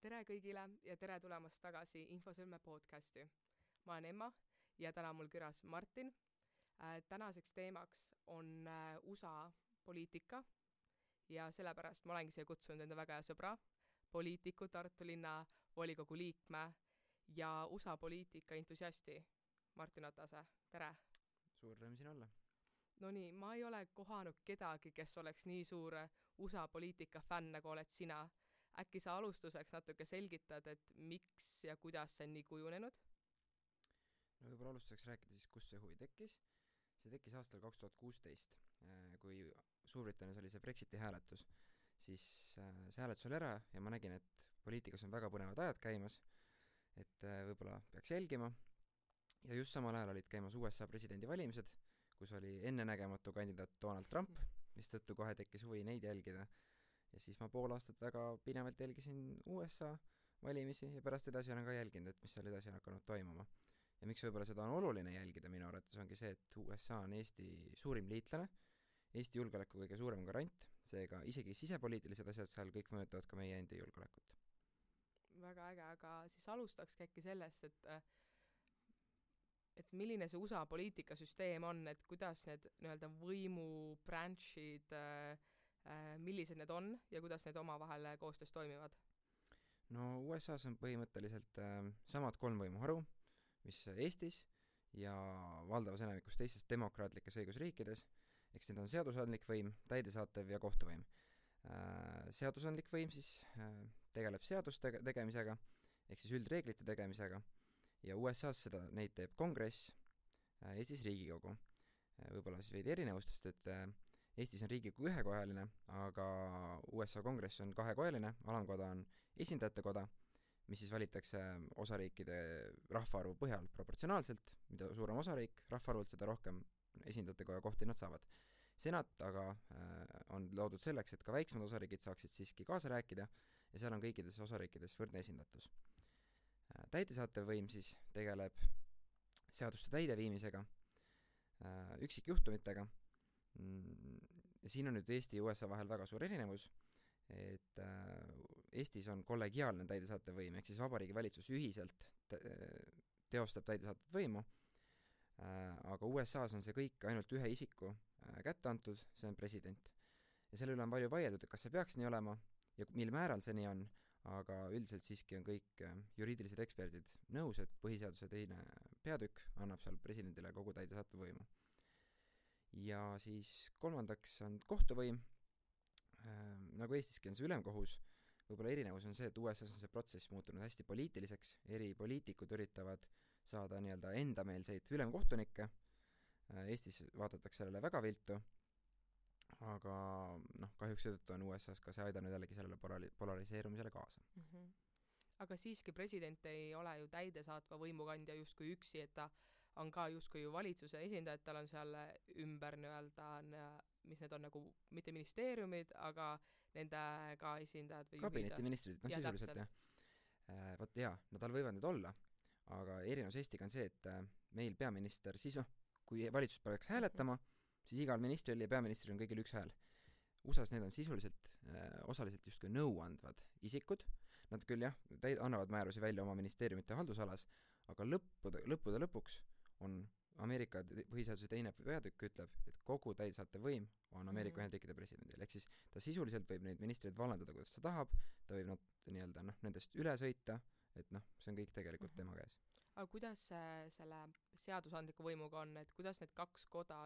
Tere kõigile ja tere tulemast tagasi Infosõlme podcasti. Ma olen Emma ja täna mul külas Martin. Tänaseks teemaks on USA poliitika ja sellepärast ma olengi siia kutsunud enda väga hea sõbra, poliitiku, Tartu linna volikogu liikme ja USA poliitika entusiasti Martin Otase. Tere! Suur rõõm siin olla. No nii, ma ei ole kohanud kedagi, kes oleks nii suur USA poliitika fänn, nagu oled sina. Äkki sa alustuseks natuke selgitad, et miks ja kuidas see on nii kujunenud? No võib-olla alustuseks rääkida siis, kus see huvi tekkis. See tekkis aastal 2016, kui Suurbritannias oli see Brexiti hääletus. Siis see hääletus oli ära ja ma nägin, et poliitikas on väga põnevad ajad käimas, et võib-olla peaks jälgima. Ja just samal ajal olid käimas USA presidendivalimised, kus oli ennenägematu kandidaat Donald Trump, mis tõttu kohe tekkis huvi neid jälgida. Ja siis ma pool aastat väga pinevalt jälgisin USA valimisi ja pärast edasi olen ka jälginud, et mis seal edasi on hakanud toimuma. Ja miks võib-olla seda on oluline jälgida minu arvates ongi see, et USA on Eesti suurim liitlane, Eesti julgeoleku kõige suurem garant, seega isegi sisepoliitilised asjad seal kõik mõjutavad ka meie endi julgeolekut. Väga äge, aga siis alustaks äkki sellest, et milline see USA poliitikasüsteem on, et kuidas need nii-öelda võimubranchid millised need on ja kuidas need omavahel koostöös toimivad? No USA's on põhimõtteliselt samad 3 võimuharu, mis Eestis ja valdavas enamikus teistes demokraatlikes õigusriikides, eks need on seadusandlik võim, täidesaatev ja kohtuvõim. Seadusandlik võim siis tegeleb seaduste tegemisega, ehk siis üldreeglite tegemisega, ja USA's neid teeb kongress, Eestis Riigikogu. Võib-olla siis veidi erinevustest, et Eestis on Riigikogu ühekojaline, aga USA kongress on 2-kojaline, alamkoda on esindajate koda, mis siis valitakse osariikide rahvaarvu põhjal proportsionaalselt, mida suurem osariik rahvaarvult, seda rohkem esindajate koja kohti nad saavad. Senat aga on loodud selleks, et ka väiksemad osariigid saaksid siiski kaasa rääkida ja seal on kõikides osariikides võrdne esindatus. Täidesaatev võim siis tegeleb seaduste täideviimisega, üksikjuhtumitega. Ja siin on nüüd Eesti ja USA vahel väga suur erinevus, et Eestis on kollegiaalne täidesaatev võim, ehk siis Vabariigi Valitsus ühiselt teostab täidesaatev võimu, aga USA's on see kõik ainult ühe isiku kätte antud, see on president. Ja selle üle on palju vaieldud, et kas see peaks nii olema ja mil määral see nii on, aga üldiselt siiski on kõik juriidilised eksperdid nõus, et põhiseaduse teine peatükk annab seal presidendile kogu täidesaatev võimu. Ja siis kolmandaks on kohtuvõim, nagu Eestiski on see ülemkohus, võib-olla erinevus on see, et USA's on see protsess muutunud hästi poliitiliseks, eri poliitikud üritavad saada nii-öelda endameelseid ülemkohtunikke, Eestis vaadatakse sellele väga viltu, aga kahjuks seetõttu on USA's ka see aidanud jällegi sellele polariseerumisele kaasa. Mm-hmm. Aga siiski president ei ole ju täidesaatva võimukandja justkui üksi, et ta on ka justkui ju valitsuse esindajad, tal on seal ümber nii-öelda, mis need on nagu mitte ministeeriumid, aga nende ka esindajad või kabinetiministrid, sisuliselt jah. Vot jaa, tal võivad need olla, aga erinevus Eestiga on see, et meil peaminister siis kui valitsus peaks hääletama, siis igal ministril ja peaministril on kõigil üks hääl. USA's need on sisuliselt osaliselt justkui nõuandvad isikud, nad küll jah, annavad määrusi välja oma ministeeriumite haldusalas, aga lõppude lõpuks on Ameerika põhiseaduse teine peatükk ütleb, et kogu täidesaatev võim on Ameerika Ühendriikide presidendil, ehk siis ta sisuliselt võib neid ministreid vallandada, kuidas ta tahab, ta võib nad nii-öelda nendest üle sõita, et see on kõik tegelikult tema käes. Aga kuidas selle seadusandliku võimuga on, et kuidas need 2 koda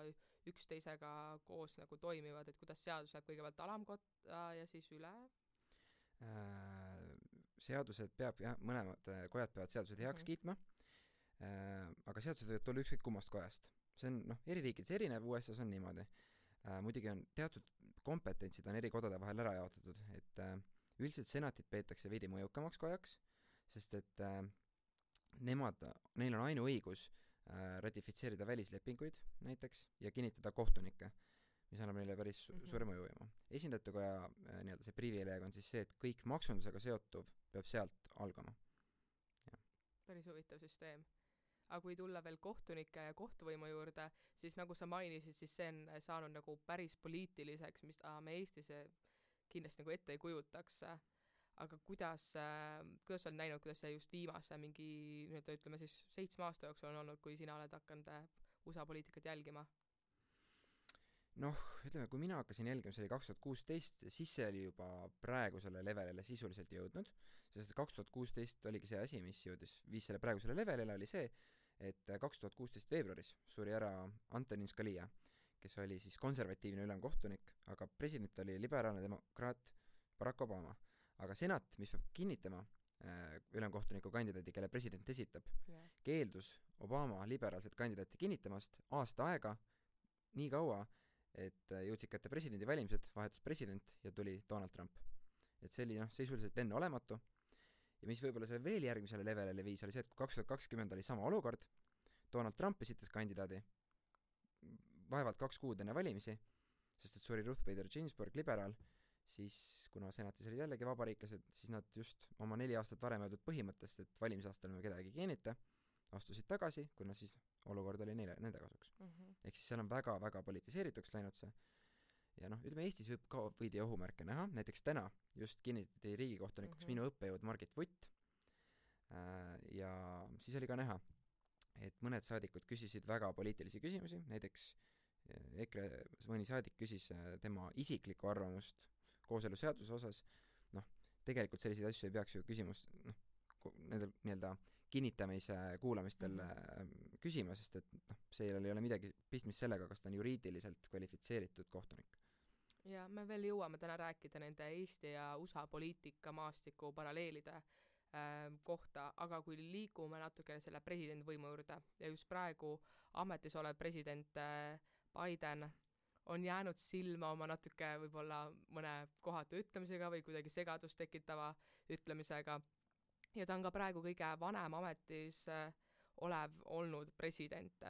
üksteisega koos nagu toimivad, et kuidas seadus läheb kõigepealt alamkotta ja siis üle? Seadused mõlemad kojad peavad seadused heaks kiitma, aga seadused võivad tulla ükskõik kummast kojast. See on eri riikides erinev, USA's on niimoodi. Muidugi on teatud kompetentsid on eri kodade vahel ära jaotatud, et üldiselt senatit peetakse veidi mõjukamaks kojaks, sest et neil on ainuõigus ratifitseerida välislepinguid näiteks ja kinnitada kohtunikke, mis annab neile päris suure mõjuvõimu. Esindajate koja nii-öelda see privileeg on siis see, et kõik maksundusega seotuv peab sealt algama. Ja. Päris huvitav süsteem. Aga kui tulla veel kohtunike ja kohtuvõimu juurde, siis nagu sa mainisid, siis see on saanud nagu päris poliitiliseks, mis me Eestis kindlasti nagu ette ei kujutaks. aga kuidas sa oled näinud, kuidas see just viimase mingi nii-öelda ütleme siis 7 aasta jooksul on olnud, kui sina oled hakanud USA poliitikat jälgima? Noh, ütleme, kui mina hakkasin jälgima, see oli 2016, siis see oli juba praegusele levelile sisuliselt jõudnud, sest 2016 oligi see asi, mis viis selle praegusele levelile, oli see, et 2016 veebruaris suri ära Antonin Scalia, kes oli siis konservatiivne ülemkohtunik, aga president oli liberaalne demokraat Barack Obama. Aga senat, mis peab kinnitama ülemkohtuniku kandidaadi, kelle president esitab, keeldus Obama liberaalset kandidaati kinnitamast aasta aega, nii kaua, et jõudsid kätte presidendivalimised, vahetus president ja tuli Donald Trump. Et see oli sisuliselt enneolematu. Ja mis võib-olla see veel järgmisele levelile viis, oli see, et kui 2020 oli sama olukord, Donald Trump esitas kandidaadi vaevalt 2 kuud enne valimisi, sest et suri Ruth Bader Ginsburg, liberaal, siis kuna senatis olid jällegi vabariiklased, siis nad just oma 4 aastat varem öeldud põhimõttest, et valimisaastal me kedagi kinnita, astusid tagasi, kuna siis olukord oli nende kasuks. Ehk siis seal on väga-väga politiseerituks läinud see. Ja ütleme, Eestis võib ka võidi ohumärke näha, näiteks täna just kinnitati riigikohtunikuks minu õppejõud Margit Vutt, ja siis oli ka näha, et mõned saadikud küsisid väga poliitilisi küsimusi, näiteks EKRE mõni saadik küsis tema isiklikku arvamust kooseluseaduse osas, tegelikult selliseid asju ei peaks ju küsimust nendel nii-öelda kinnitamise kuulamistel küsima, sest et see ei ole midagi pistmist sellega, kas ta on juriidiliselt kvalifitseeritud kohtunik. Ja me veel jõuame täna rääkida nende Eesti ja USA poliitika maastiku paralleelide kohta, aga kui liigume natukene selle presidendivõimu juurde ja just praegu ametis olev president Biden on jäänud silma oma natuke võib-olla mõne kohatu ütlemisega või kuidagi segadust tekitava ütlemisega ja ta on ka praegu kõige vanem ametis olev olnud president.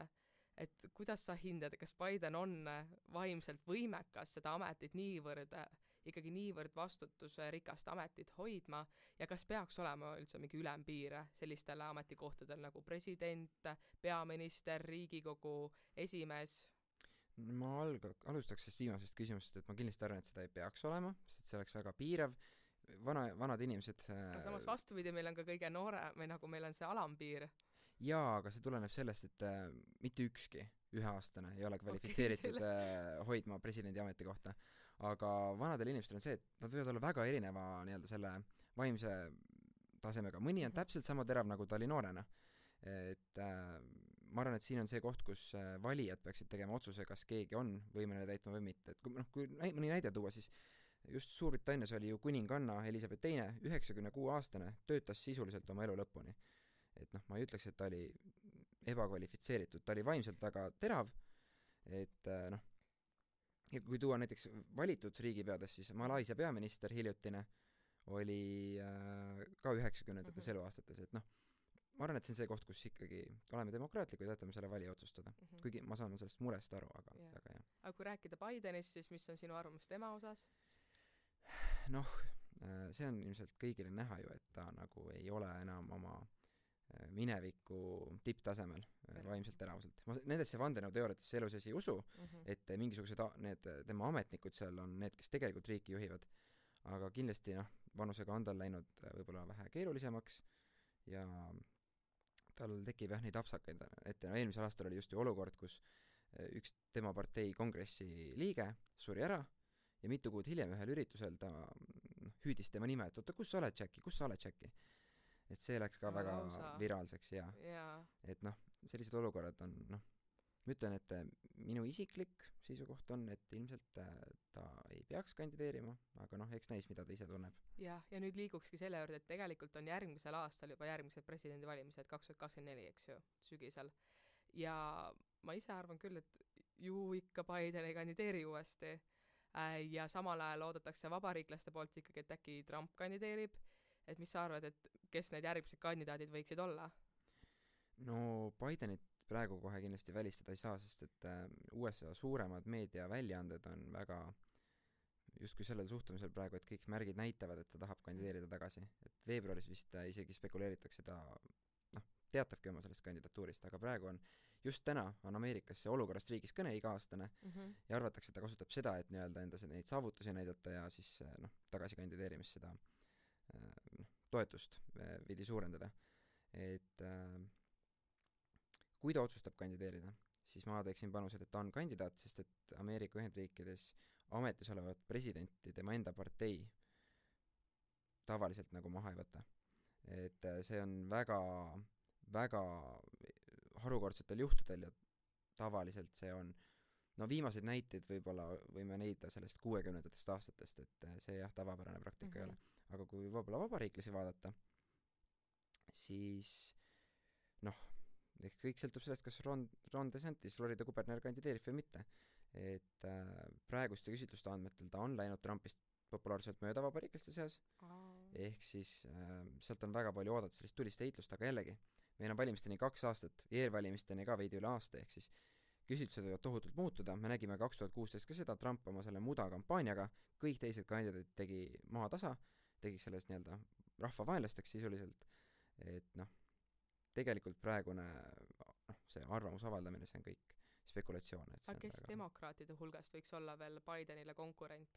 Et kuidas sa hindad, kas Biden on vaimselt võimekas seda ametit ikkagi niivõrd vastutusrikast ametit hoidma ja kas peaks olema üldse mingi ülempiir sellistele ametikohtadel nagu president, peaminister, Riigikogu esimees? Ma alustaks sellest viimasest küsimusest, et ma kindlasti arvan, et seda ei peaks olema, sest see oleks väga piirav. Vanad inimesed... Aga samas vastupidi, meil on ka kõige noore, või nagu meil on see alampiir. Jaa, aga see tuleneb sellest, et mitte ükski 1-aastane ei ole kvalifitseeritud hoidma presidendi ametikohta. Aga vanadel inimestel on see, et nad võivad olla väga erineva nii-öelda selle vaimse tasemega. Mõni on täpselt sama terav, nagu ta oli noorena. Et ma arvan, et siin on see koht, kus valijad peaksid tegema otsuse, kas keegi on võimeline täitma või mitte. Et kui mõni näide tuua, siis just Suurbritannias oli ju kuninganna Elisabeth II, 96-aastane, töötas sisuliselt oma elu lõpuni. Et ma ei ütleks, et ta oli ebakvalifitseeritud, ta oli vaimselt väga terav, et ja kui tuua näiteks valitud riigipeades, siis Malaisia peaminister hiljutine oli ka 90-ndates eluaastates, et ma arvan, et see on see koht, kus ikkagi oleme demokraatlikud ja jätame selle valija otsustada. Kuigi ma saan sellest murest aru, aga väga hea. Aga kui rääkida Bidenist, siis mis on sinu arvamus tema osas? See on ilmselt kõigile näha ju, et ta nagu ei ole enam oma mineviku tipptasemel vaimselt teravuselt. Ma nendesse vandenõuteooriatesse elus ei usu, et mingisugused need tema ametnikud seal on need, kes tegelikult riiki juhivad. Aga kindlasti vanusega on tal läinud võib-olla vähe keerulisemaks ja tal tekib neid apsakaid ette. Eelmisel aastal oli just ju olukord, kus üks tema partei kongressi liige suri ära ja mitu kuud hiljem ühel üritusel ta hüüdis tema nime, et oota, kus sa oled, Jackie? Et see läks ka väga viraalseks ja et sellised olukorrad on, ma ütlen, et minu isiklik seisukoht on, et ilmselt ta ei peaks kandideerima, aga eks näis, mida ta ise tunneb. Ja nüüd liigukski selle juurde, et tegelikult on järgmisel aastal juba järgmised presidendivalimised 2024, eks ju, sügisel. Ja ma ise arvan küll, et ju ikka Biden ei kandideeri uuesti ja samal ajal oodatakse vabariiklaste poolt ikkagi, et äkki Trump kandideerib. Et mis sa arvad, et kes need järgmised kandidaadid võiksid olla? Bidenit praegu kohe kindlasti välistada ei saa, sest et USA suuremad meediaväljaanded on väga justkui sellel suhtumisel praegu, et kõik märgid näitavad, et ta tahab kandideerida tagasi. Et veebruaris vist isegi spekuleeritakse ta teatabki oma sellest kandidatuurist, aga praegu on just täna on Ameerikas see olukorrast riigis kõne iga-aastane ja arvatakse, et ta kasutab seda, et nii-öelda enda neid saavutusi näidata ja siis tagasi kandideerimist seda toetust veidi suurendada. Et kui ta otsustab kandideerida, siis ma teeksin panused, et ta on kandidaat, sest et Ameerika Ühendriikides ametis olevat presidenti tema enda partei tavaliselt nagu maha ei võta. Et see on väga, väga harukordsetel juhtudel ja tavaliselt see on, no viimaseid näiteid võib-olla võime leida sellest 60ndatest aastatest, et see jah, tavapärane praktika ei ole. Aga kui võib-olla vabariiklasi vaadata, siis noh, ehk kõik sõltub sellest, kas Ron DeSantis, Florida kuberner, kandideerib või mitte. Et praeguste küsitluste andmetel ta on läinud Trumpist populaarselt mööda vabariiklaste seas, ehk siis sealt on väga palju oodata sellist tulist heitlust, aga jällegi, meil on valimisteni 2 aastat, eelvalimisteni ka veidi üle aasta, ehk siis küsitlused võivad tohutult muutuda, me nägime 2016 ka seda, Trump oma selle muda kampaaniaga, kõik teised kandidaadid tegi maha tasa, tegi sellest nii-öelda rahvavaenlasteks sisuliselt, et noh, tegelikult praegune see arvamuse avaldamine, see on kõik spekulatsioon. Aga kes demokraatide hulgast võiks olla veel Bidenile konkurent?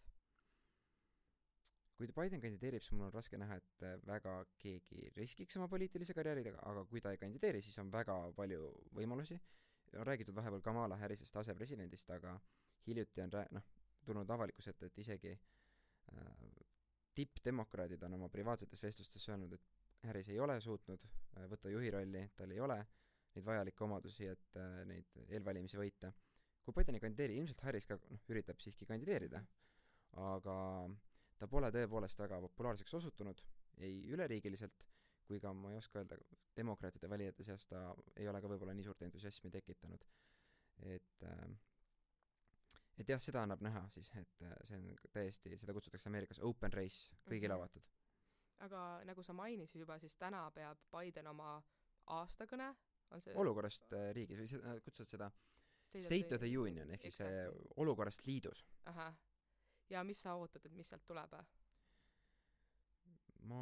Kui Biden kandideerib, siis mul on raske näha, et väga keegi riskiks oma poliitilise karjääridega, aga kui ta ei kandideeri, siis on väga palju võimalusi. On räägitud vahepeal Kamala Harrisest asepresidendist, aga hiljuti on tulnud avalikkuse ette, et isegi tippdemokraadid on oma privaatsetes vestlustes öelnud, et Harris ei ole suutnud võtta juhi rolli, tal ei ole neid vajalikke omadusi, et neid eelvalimisi võita. Kui Biden ei kandideeri, ilmselt Harris ka üritab siiski kandideerida, aga ta pole tõepoolest väga populaarseks osutunud, ei üleriigiliselt, kui ka ma ei oska öelda, demokraatide valijate seas ta ei ole ka võib-olla nii suurt entusiasmi tekitanud. Et jah, seda annab näha siis, et see on täiesti, seda kutsutakse Ameerikas open race, kõigile avatud. Aga nagu sa mainisid juba, siis täna peab Biden oma aastakõne, on see olukorrast riigis, või kutsuvad seda State of the Union, ehk siis olukorrast liidus. Aha. Ja mis sa ootad, et mis sealt tuleb? Ma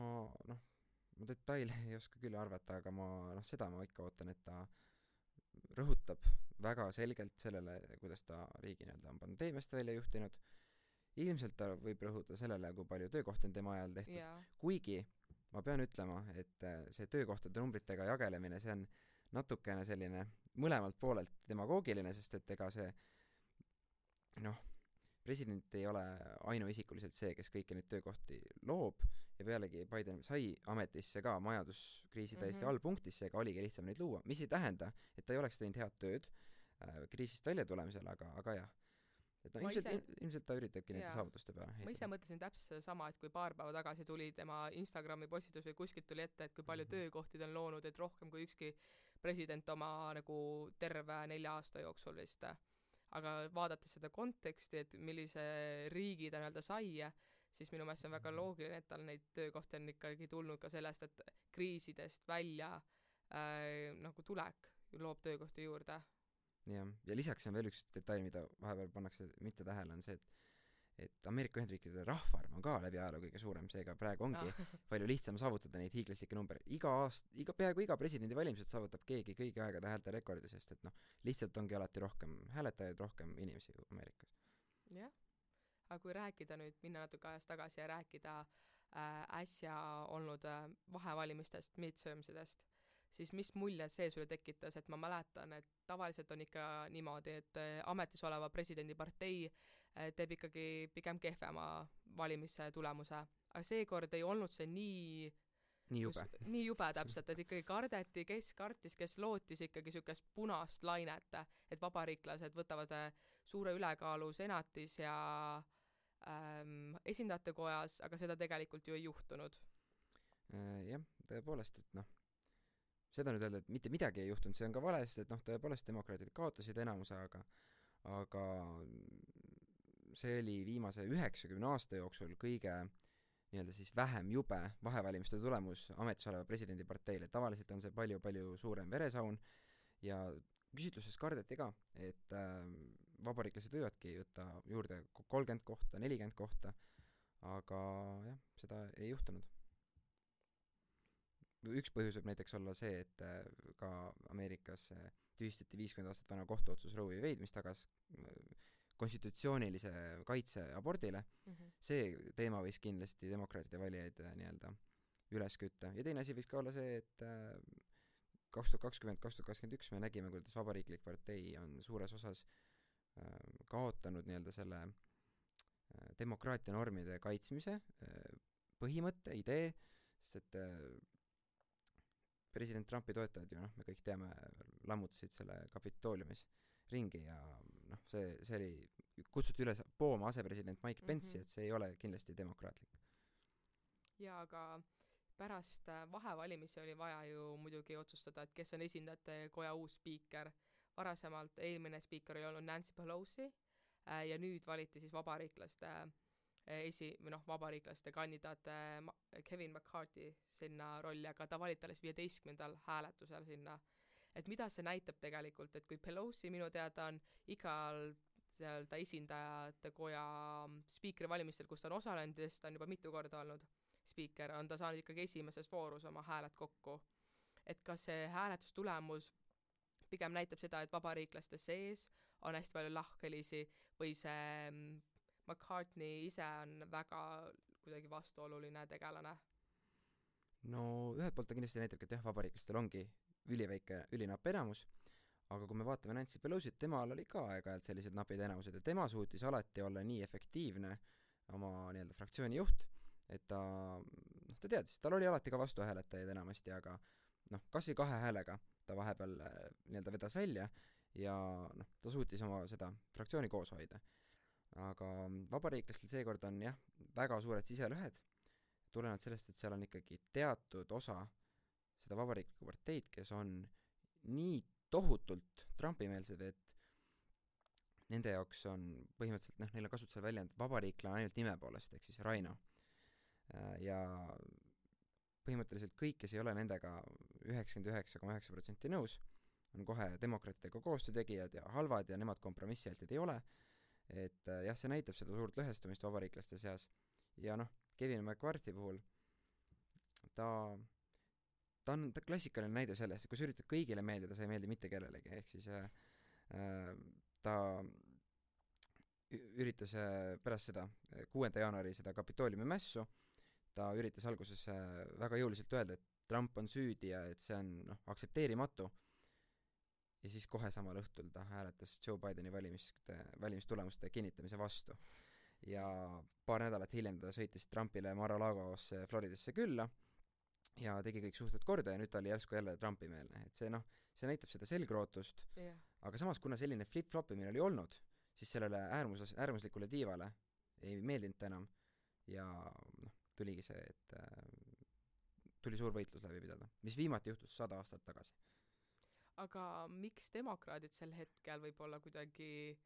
detaile ei oska küll arvata, aga seda ma ikka ootan, et ta rõhutab väga selgelt sellele, kuidas ta riigi on pandeemiast välja juhtinud. Ilmselt ta võib rõhuda sellele, kui palju töökohti on tema ajal tehtud. Yeah. Kuigi ma pean ütlema, et see töökohtade numbritega jagelemine, see on natukene selline mõlemalt poolelt demagoogiline, sest et ega see president ei ole ainuisikuliselt see, kes kõiki neid töökohti loob ja pealegi Biden sai ametisse ka majanduskriisi täiesti allpunktis, seega oligi lihtsam neid luua, mis ei tähenda, et ta ei oleks teinud head tööd kriisist välja tulemisel, aga jah. Et ilmselt ta üritabki nende saavutuste peale. Ma ise mõtlesin täpselt sama, et kui paar päeva tagasi tuli tema Instagrami postitus või kuskilt tuli ette, et kui palju töökohtid on loonud, et rohkem kui ükski president oma nagu terve 4 aasta jooksul vist. Aga vaadates seda konteksti, et millise riigi ta sai, siis minu meelest on väga loogiline, et tal neid töökohti on ikkagi tulnud ka sellest, et kriisidest välja nagu tulek loob töökohti juurde. Ja lisaks on veel üks detail, mida vahepeal pannakse mitte tähele, on see, et Ameerika Ühendriikide rahvaarv on ka läbi ajaloo kõige suurem, seega praegu ongi palju lihtsam saavutada neid hiiglaslikke number. Peaaegu iga presidendi valimised saavutab keegi kõigi aegade häälte rekordi, sest et lihtsalt ongi alati rohkem hääletajaid, rohkem inimesi Ameerikas. Jah, aga kui rääkida nüüd, minna natuke ajast tagasi ja rääkida äsja olnud vahevalimistest, midtermsidest, siis mis mulje see sulle tekitas, et ma mäletan, et tavaliselt on ikka niimoodi, et ametis oleva presidendi partei teeb ikkagi pigem kehvema valimise tulemuse. Aga seekord ei olnud see nii jube täpselt, et ikkagi kardeti, kes kartis, kes lootis ikkagi sükest punast lainet, et vabariiklased võtavad suure ülekaalu senatis ja esindajate kojas, aga seda tegelikult ju ei juhtunud. Jah, tõepoolest, et seda nüüd öelda, et mitte midagi ei juhtunud, see on ka vale, sest et tõepoolest demokraadid kaotasid enamuse, aga see oli viimase 90 aasta jooksul kõige nii-öelda siis vähem jube vahevalimiste tulemus ametis oleva presidendi parteile. Tavaliselt on see palju suurem veresaun ja küsitluses kardeti ka, et vabariiklased võivadki võtta juurde 30 kohta, 40 kohta, aga jah, seda ei juhtunud. Üks põhjus võib näiteks olla see, et ka Ameerikas tühistati 50 aastat vana kohtuotsus Roe v. Wade, mis tagas konstitutsioonilise kaitse abordile. See teema võis kindlasti demokraatide valijaid nii-öelda üles kütta. Ja teine asi võiks ka olla see, et 2020-2021 me nägime, kuidas Vabariiklik partei on suures osas kaotanud nii-öelda selle demokraatia normide kaitsmise põhimõtte, idee, sest et president Trumpi toetajad ju, me kõik teame, lammutasid selle Kapitooliumis ringi ja see oli, kutsuti üles pooma asepresident Mike Pence'i, et see ei ole kindlasti demokraatlik. Ja aga pärast vahevalimisi oli vaja ju muidugi otsustada, et kes on esindajate koja uus spiiker. Varasemalt eelmine spiiker oli olnud Nancy Pelosi ja nüüd valiti siis vabariiklaste kandidaat Kevin McCarthy sinna rolli, aga ta valiti alles 15. hääletusel sinna. Et mida see näitab tegelikult, et kui Pelosi minu teada on igal ta esindajate koja spiikri valimistel, kus ta on osalenud, ta on juba mitu korda olnud spiiker, on ta saanud ikkagi esimeses voorus oma hääled kokku. Et kas see hääletustulemus pigem näitab seda, et vabariiklaste sees on hästi palju lahkhelisi või see McCartney ise on väga kuidagi vastuoluline tegelane? No ühelt poolt ta kindlasti näitab, et jah, vabariiklastel ongi ülinapp enamus, aga kui me vaatame Nancy Pelosit, temal oli ka aeg-ajalt sellised napid enamused ja tema suutis alati olla nii efektiivne oma nii-öelda fraktsiooni juht, et ta teadis, tal oli alati ka vastuhääletajaid enamasti, aga kas või 2 häälega ta vahepeal nii-öelda vedas välja ja ta suutis oma seda fraktsiooni koos hoida. Aga vabariiklastel seekord on jah, väga suured siselõhed, tulenevalt sellest, et seal on ikkagi teatud osa seda vabariiklikku parteid, kes on nii tohutult Trumpi-meelsed, et nende jaoks on põhimõtteliselt, neil on kasutusel väljend vabariiklane ainult nime poolest, ehk siis Raino. Ja põhimõtteliselt kõik, kes ei ole nendega 99,9% nõus, on kohe demokraatidega koostöötegijad ja halvad ja nemad kompromissialtid ei ole. Et jah, see näitab seda suurt lõhestumist vabariiklaste seas. Ja Kevin McCarthy puhul ta on klassikaline näide sellest, et kui sa üritad kõigile meeldida, sa ei meeldi mitte kellelegi, ehk siis ta üritas pärast seda 6. jaanuari seda Kapitooliumi mässu, ta üritas alguses väga jõuliselt öelda, et Trump on süüdi ja et see on aktsepteerimatu. Ja siis kohe samal õhtul ta hääletas Joe Bideni valimistulemuste kinnitamise vastu. Ja paar nädalat hiljem ta sõitis Trumpile Mar-a-Lagosse Floridasse külla ja tegi kõik suhted korda ja nüüd ta oli järsku jälle Trumpi-meelne. Et see näitab seda selgrootust, aga samas kuna selline flip-flopimine oli olnud, siis sellele äärmuslikule tiivale ei meeldinud enam ja tuligi see, et tuli suur võitlus läbi pidada, mis viimati juhtus 100 aastat tagasi. Aga miks demokraadid sel hetkel võib-olla kuidagi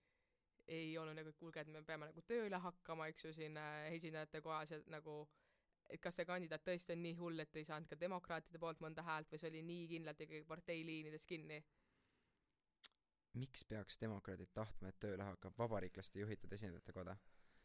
ei olnud nagu, et kuulge, et me peame nagu tööle hakkama, eks ju, siin esindajate kohas, et nagu, et kas see kandidaat tõesti on nii hull, et ei saanud ka demokraatide poolt mõnda häält või see oli nii kindlalt ikkagi parteiliinides kinni? Miks peaks demokraadid tahtma, et tööle hakkab vabariiklaste juhitud esindajate koda?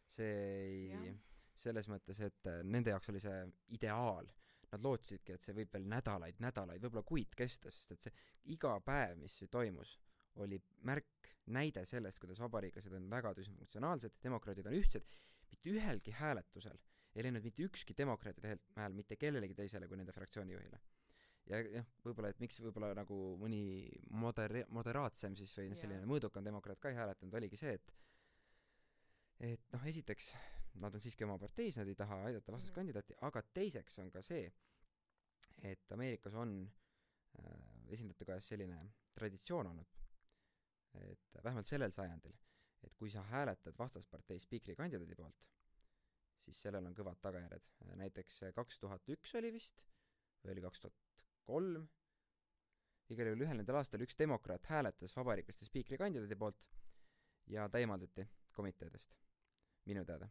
See ei, selles mõttes, et nende jaoks oli see ideaal. Nad lootsidki, et see võib veel nädalaid, võib-olla kuid kesta, sest et see iga päev, mis see toimus, oli märk, näide sellest, kuidas vabariiklased on väga düsfunktsionaalsed, demokraadid on ühtsed, mitte ühelgi hääletusel ei läinud mitte ükski demokraatide hääl mitte kellelegi teisele kui nende fraktsiooni juhile. Ja võib-olla, et miks võib-olla nagu mõni moderaatsem siis või selline mõõdukam demokraat ka ei hääletanud, oligi see, et esiteks nad on siiski oma parteis, nad ei taha aidata vastaskandidaati, aga teiseks on ka see, et Ameerikas on esindajate kojas selline traditsioon olnud, et vähemalt sellel sajandil, et kui sa hääletad vastaspartei spiikri kandidaadi poolt, siis sellel on kõvad tagajärjed. Näiteks 2001 oli vist, või oli 2003, igal juhul ühel nendel aastal üks demokraat hääletas vabariiklaste spiikri kandidaadi poolt ja ta eemaldati komiteedest, minu teada.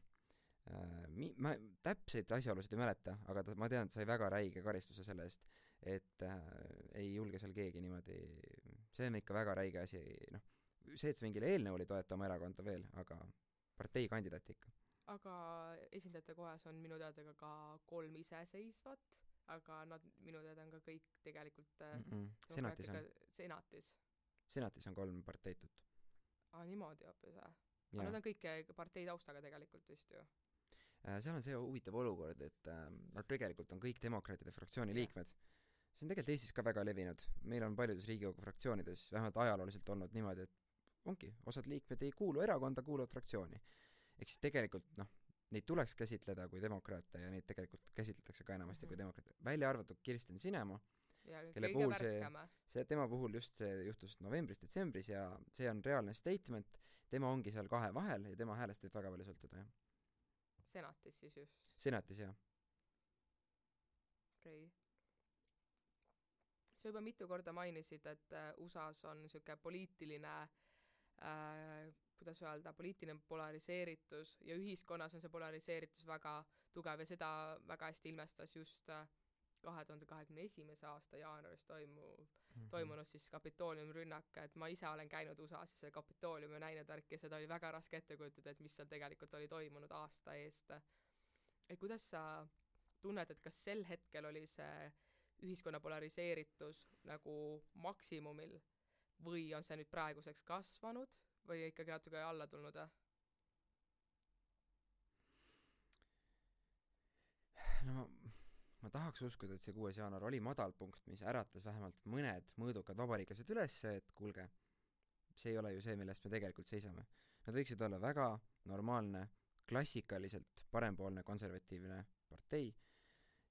Ma täpseid asjaolusid ei mäleta, aga ma tean, et sai väga räige karistuse selle eest, et ei julge seal keegi niimoodi, see on ikka väga räige asi, see, et see mingile eelnõu oli toeta oma erakonda veel, aga partei kandidaat ikka. Aga esindajate kohas on minu teada ka 3 iseseisvat, aga nad minu teada on ka kõik tegelikult Senatis on 3 parteitut. Niimoodi hoopis või? Aga nad on kõik partei taustaga tegelikult vist ju. seal on see huvitav olukord, et nad tegelikult on kõik demokraatide fraktsiooni liikmed. See on tegelikult Eestis ka väga levinud. Meil on paljudes Riigikogu fraktsioonides vähemalt ajalooliselt olnud niimoodi, et ongi, osad liikmed ei kuulu erakonda, kuuluvad fraktsiooni. Ehk siis tegelikult, neid tuleks käsitleda kui demokraate ja neid tegelikult käsitletakse ka enamasti kui demokraate. Välja arvatud Kirsten Sinema, kelle puhul tema puhul just see juhtus novembris-detsembris ja see on reaalne statement. Tema ongi seal kahe vahel ja tema häälest võib väga palju sõltuda, jah. Senatis siis just? Senatis, jah. Okei. Sa juba mitu korda mainisid, et USAs on niisugune poliitiline, kuidas öelda, poliitiline polariseeritus ja ühiskonnas on see polariseeritus väga tugev ja seda väga hästi ilmestas just 2021. aasta jaanuaris toimunud siis Kapitooliumi rünnak, et ma ise olen käinud USAs ja see Kapitooliumi näinud värk ja seda oli väga raske ette kujutada, et mis seal tegelikult oli toimunud aasta eest. Et kuidas sa tunned, et kas sel hetkel oli see ühiskonna polariseeritus nagu maksimumil või on see nüüd praeguseks kasvanud või ikkagi natuke alla tulnud? No ma tahaks uskuda, et see 6. jaanuar oli madalpunkt, mis äratas vähemalt mõned mõõdukad vabariiklased üles, et kuulge, see ei ole ju see, millest me tegelikult seisame. Nad võiksid olla väga normaalne, klassikaliselt parempoolne konservatiivne partei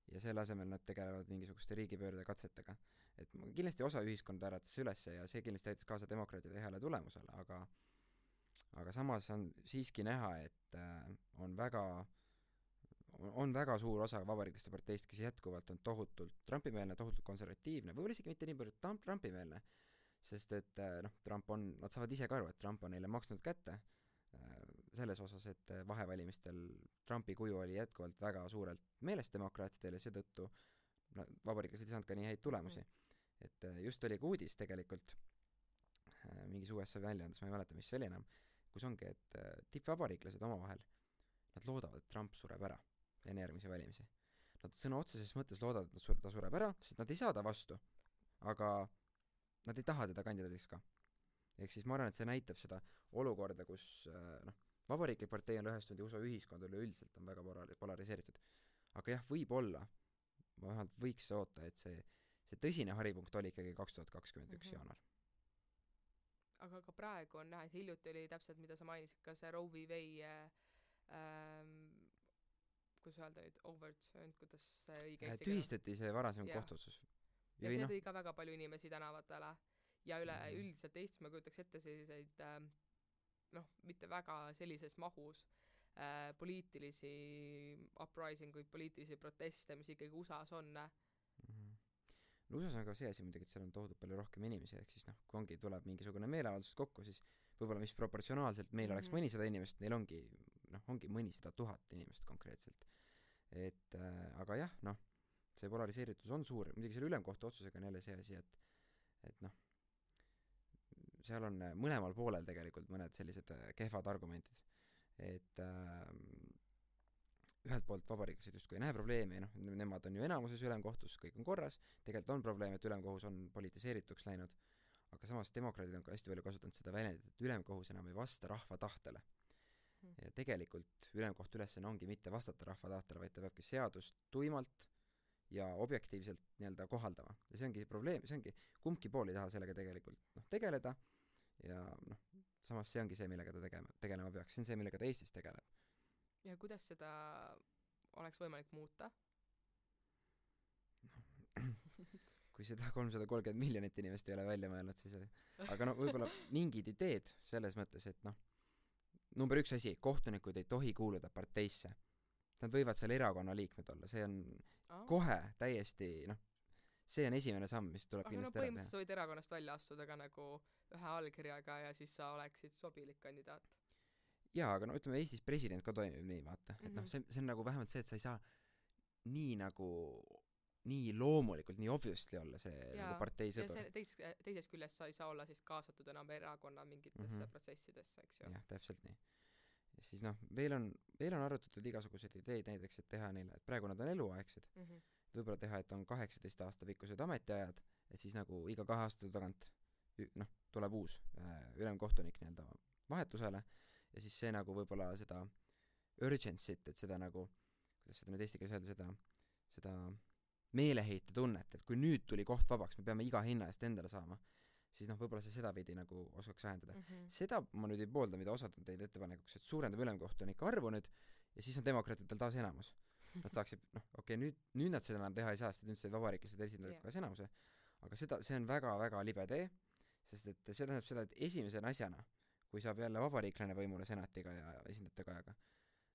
ja selle asemel nad tegelevad mingisuguste riigipöörde katsetega. Et kindlasti osa ühiskonda äratas ülesse ja see kindlasti aitas kaasa demokraatide heale tulemusele, aga samas on siiski näha, et on väga suur osa vabariiklaste parteist, kes jätkuvalt on tohutult Trumpimeelne, tohutult konservatiivne, võib-olla isegi mitte nii palju Trumpimeelne, sest et nad saavad ise ka aru, et Trump on neile maksnud kätte selles osas, et vahevalimistel Trumpi kuju oli jätkuvalt väga suurelt meelest demokraatidel ja seetõttu vabariiklased ei saanud ka nii häid tulemusi. Et just oli ka uudis tegelikult mingis USA väljaandes, ma ei mäleta, mis see oli enam, kus ongi, et tippvabariiklased omavahel, nad loodavad, et Trump sureb ära enne järgmisi valimisi. Nad sõna otseses mõttes loodavad, et ta sureb ära, sest nad ei saa ta vastu, aga nad ei taha teda kandidaadiks ka. Ehk siis ma arvan, et see näitab seda olukorda, kus vabariiklik partei on lõhestunud ja USA ühiskond üleüldiselt on väga polariseeritud. Aga jah, võib-olla, ma vähemalt võiks oota, et see tõsine haripunkt oli ikkagi 2021 jaanuar. Aga ka praegu on näha, et hiljuti oli täpselt, mida sa mainisid, ka see Roe v. Wade kuidas öelda nüüd, overturned, kuidas see õige eesti tühistati see varasem kohtuotsus. Ja see tõi ka väga palju inimesi tänavatele ja üldiselt Eestis ma kujutaks ette selliseid mitte väga sellises mahus poliitilisi uprising-uid, poliitilisi proteste, mis ikkagi USA-s on. No USA-s on ka see asi muidugi, et seal on tohutult palju rohkem inimesi, ehk siis kui ongi tuleb mingisugune meeleavaldus kokku, siis võib-olla mis proportsionaalselt meil oleks mõnisada inimest, neil ongi mõnisada 1000 inimest konkreetselt. Et aga jah, see polariseeritus on suur, muidugi selle ülemkohtu otsusega on jälle see asi, et seal on mõlemal poolel tegelikult mõned sellised kehvad argumentid. Et ühelt poolt vabariiklased justkui ei näe probleemi, nemad on ju enamuses ülemkohtus, kõik on korras, tegelikult on probleem, et ülemkohus on politiseerituks läinud, aga samas demokraadid on ka hästi palju kasutanud seda väljendit, et ülemkohus enam ei vasta rahva tahtele. Ja tegelikult ülemkohtu ülesanne ongi mitte vastata rahva tahtele, vaid ta peabki seadust tuimalt ja objektiivselt nii-öelda kohaldama. Ja see ongi probleem, see ongi, kumbki pool ei taha sellega tegelikult tegeleda ja samas see ongi see, millega ta tegelema peaks, see on see, millega ta Eestis tegeleb. Ja kuidas seda oleks võimalik muuta? Kui seda 330 miljonit inimest ei ole välja mõelnud, siis aga võib-olla mingid ideed selles mõttes, et number 1 asi, kohtunikud ei tohi kuuluda parteisse. Nad võivad seal erakonna liikmed olla, see on kohe täiesti, see on esimene samm, mis tuleb kindlasti ära teha. Põhimõtteliselt võid erakonnast välja astuda ka nagu ühe allkirjaga ja siis sa oleksid sobilik kandidaat. Jaa, aga ütleme Eestis president ka toimib nii, vaata. Et see on nagu vähemalt see, et sa ei saa nii loomulikult, nii obviously olla see nagu partei sõdur. Ja teises küljest sa ei saa olla siis kaasatud enam erakonna mingitesse protsessidesse, eks ju. Jah, täpselt nii. Ja siis veel on arutatud igasuguseid ideid näiteks, et teha neile, et praegu nad on eluaegsed. Võib-olla teha, et on 18 aasta pikkused ametiajad, et siis nagu iga 2 aasta tagant tuleb uus ülemkohtunik nii-öelda vahetusele ja siis see nagu võib-olla seda urgency't, et seda nagu, kuidas seda nüüd eesti keeles öelda, seda meeleheite tunnet, et kui nüüd tuli koht vabaks, me peame iga hinna eest endale saama, siis võib-olla see sedapidi nagu oskaks vähendada. Seda ma nüüd ei poolda, mida osad on teid ettepanekuks, et suurendab ülemkohtunike arvu nüüd ja siis on demokraatidel taas enamus. Nad saaksid, nüüd nad seda enam teha ei saa, sest nüüd said vabariiklased esindajad kaas enamuse, aga see on väga-väga libe tee, sest et see tähendab seda, et esimese asjana, kui saab jälle vabariiklane võimule senatiga ja esindajate kajaga,